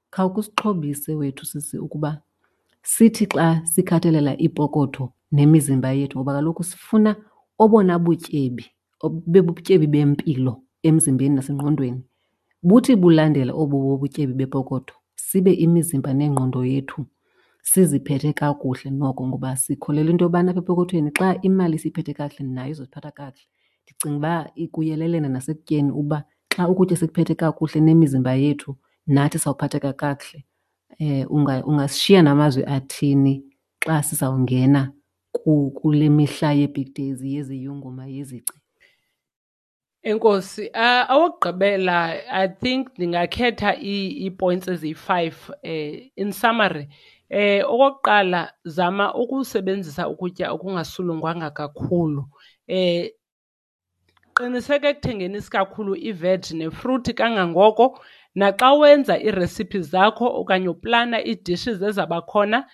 Khawukhe usixhobise wethu sisi ukuba sithi xa sikhathalela iipokotho nemizimba yethu, ngoba kaloku sifuna obona butyebi bubutyebi bempilo emzimbeni nasengqondweni, buthi bulandela obu butyebi bepokotho sibe imizimba nengqondo yethu siziphethe kakuhle noko, ngoba sikholelwa into yobana apha epokothweni xa imali siyiphethe kakuhle nayo izosiphatha kakuhle. Ndicinga uba ikuyelelene nasekutyeni uba xa ukutya sikuphethe kakuhle nemizimba yethu nathi sawuphatheka kakuhle. Ungasishiya namazwi athini xa sizawungena kule mihla yee-big days, yeziyunguma, yezici? Enkosi. Awokugqibela I think ndingakhetha ii-points eziyi-five in summary. Okokuqala, zama ukusebenzisa ukutya okungasulungwanga kakhulu. Qiniseka ekuthengeni isikakhulu iveg nefruthi kangangoko. Naxa wenza iiresiphi zakho okanye uplana ii-dishes ezabakhona,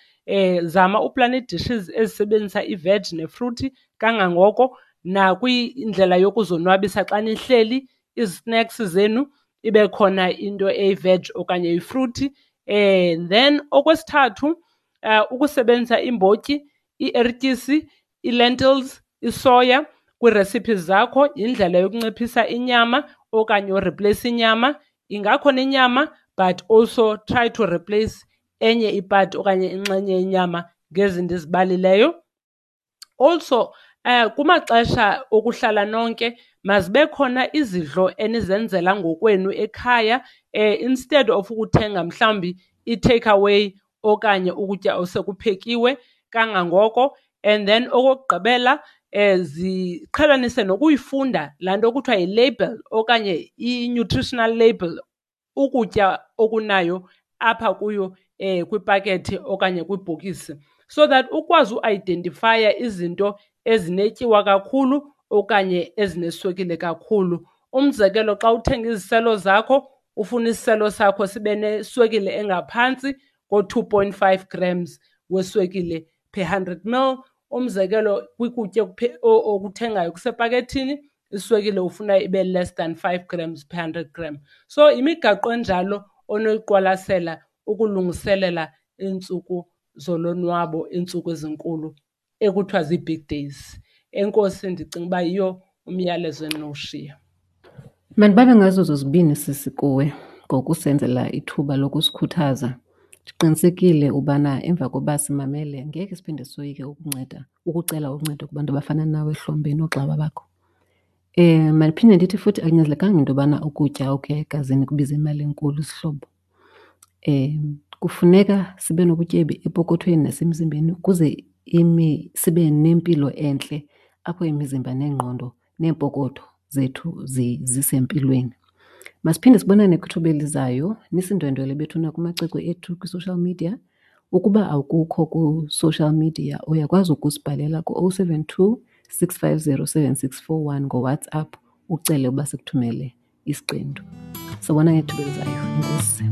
zama uplana ii-dishes ezisebenzisa iveg nefruthi kangangoko. Nakwindlela yokuzonwabisa xa nihleli, izi-snacks zenu ibe khona into eyi-veg okanye eyifruthi. Then okwesithathu, ukusebenzisa iimbotyi, iertyisi, ii-lentils, isoya kwii-recipes zakho yindlela yokunciphisa inyama okanye ureplace inyama. Ingakhona inyama but also try to replace enye ipati okanye inxenye yenyama ngezi ndizibalileyo. Also, kumaxesha okuhlala nonke mazibe khona izidlo enizenzela ngokwenu ekhaya, instead of ukuthenga mhlawumbi i-take away okanye ukutya osekuphekiwe kangangoko. And then okokugqibela, ziqhelanise nokuyifunda laa nto kuthiwa yi-label okanye i-nutritional label, ukutya okunayo apha kuyo kwipakethi okanye kwibhokisi, so that ukwazi uidentifaya izinto ezinetyiwa kakhulu okanye ezineswekile kakhulu. Umzekelo, xa uthenga iziselo zakho ufuna isiselo sakho sibe neswekile engaphantsi ko-2.5 grams weswekile per 100 ml. Umzekelo, kwikutya okuthengayo kusepakethini, iswekile ufuna ibe less than 5 grams per 100 gram. So imigaqo enjalo onoyiqwalasela ukulungiselela iintsuku zolonwabo, iintsuku ezinkulu ekuthiwa zii-big days. Enkosi, ndicinga uba yiyo umyalezo endinowushiya. Mandibabe ngazo zozibini sisi kuwe ngokusenzela ithuba lokusikhuthaza. Ndiqinisekile ubana emva koba simamele ngeke siphinde soyike ukucela uncedo kubantu abafana nawe Hlombe noogxa bakho. Mandiphinde ndithi futhi akunyanzelekanga into yobana ukutya okuya egazini kubize imali enkulu sihlobo. Kufuneka sibe nobutyebi epokothweni nasemzimbeni ukuze sibe nempilo entle apho imizimba neengqondo neempokotho zethu zisempilweni. Masiphinde sibonane kwithuba elizayo. Nisindwendwele bethuna kumacwecwe ethu kwi-social media. Ukuba awukukho ku-social media uyakwazi ukusibhalela ku-072 650 7641 ngoWhatsApp ucele uba sikuthumele isiqendu. Sobona ngethuba elizayo. Enkosi.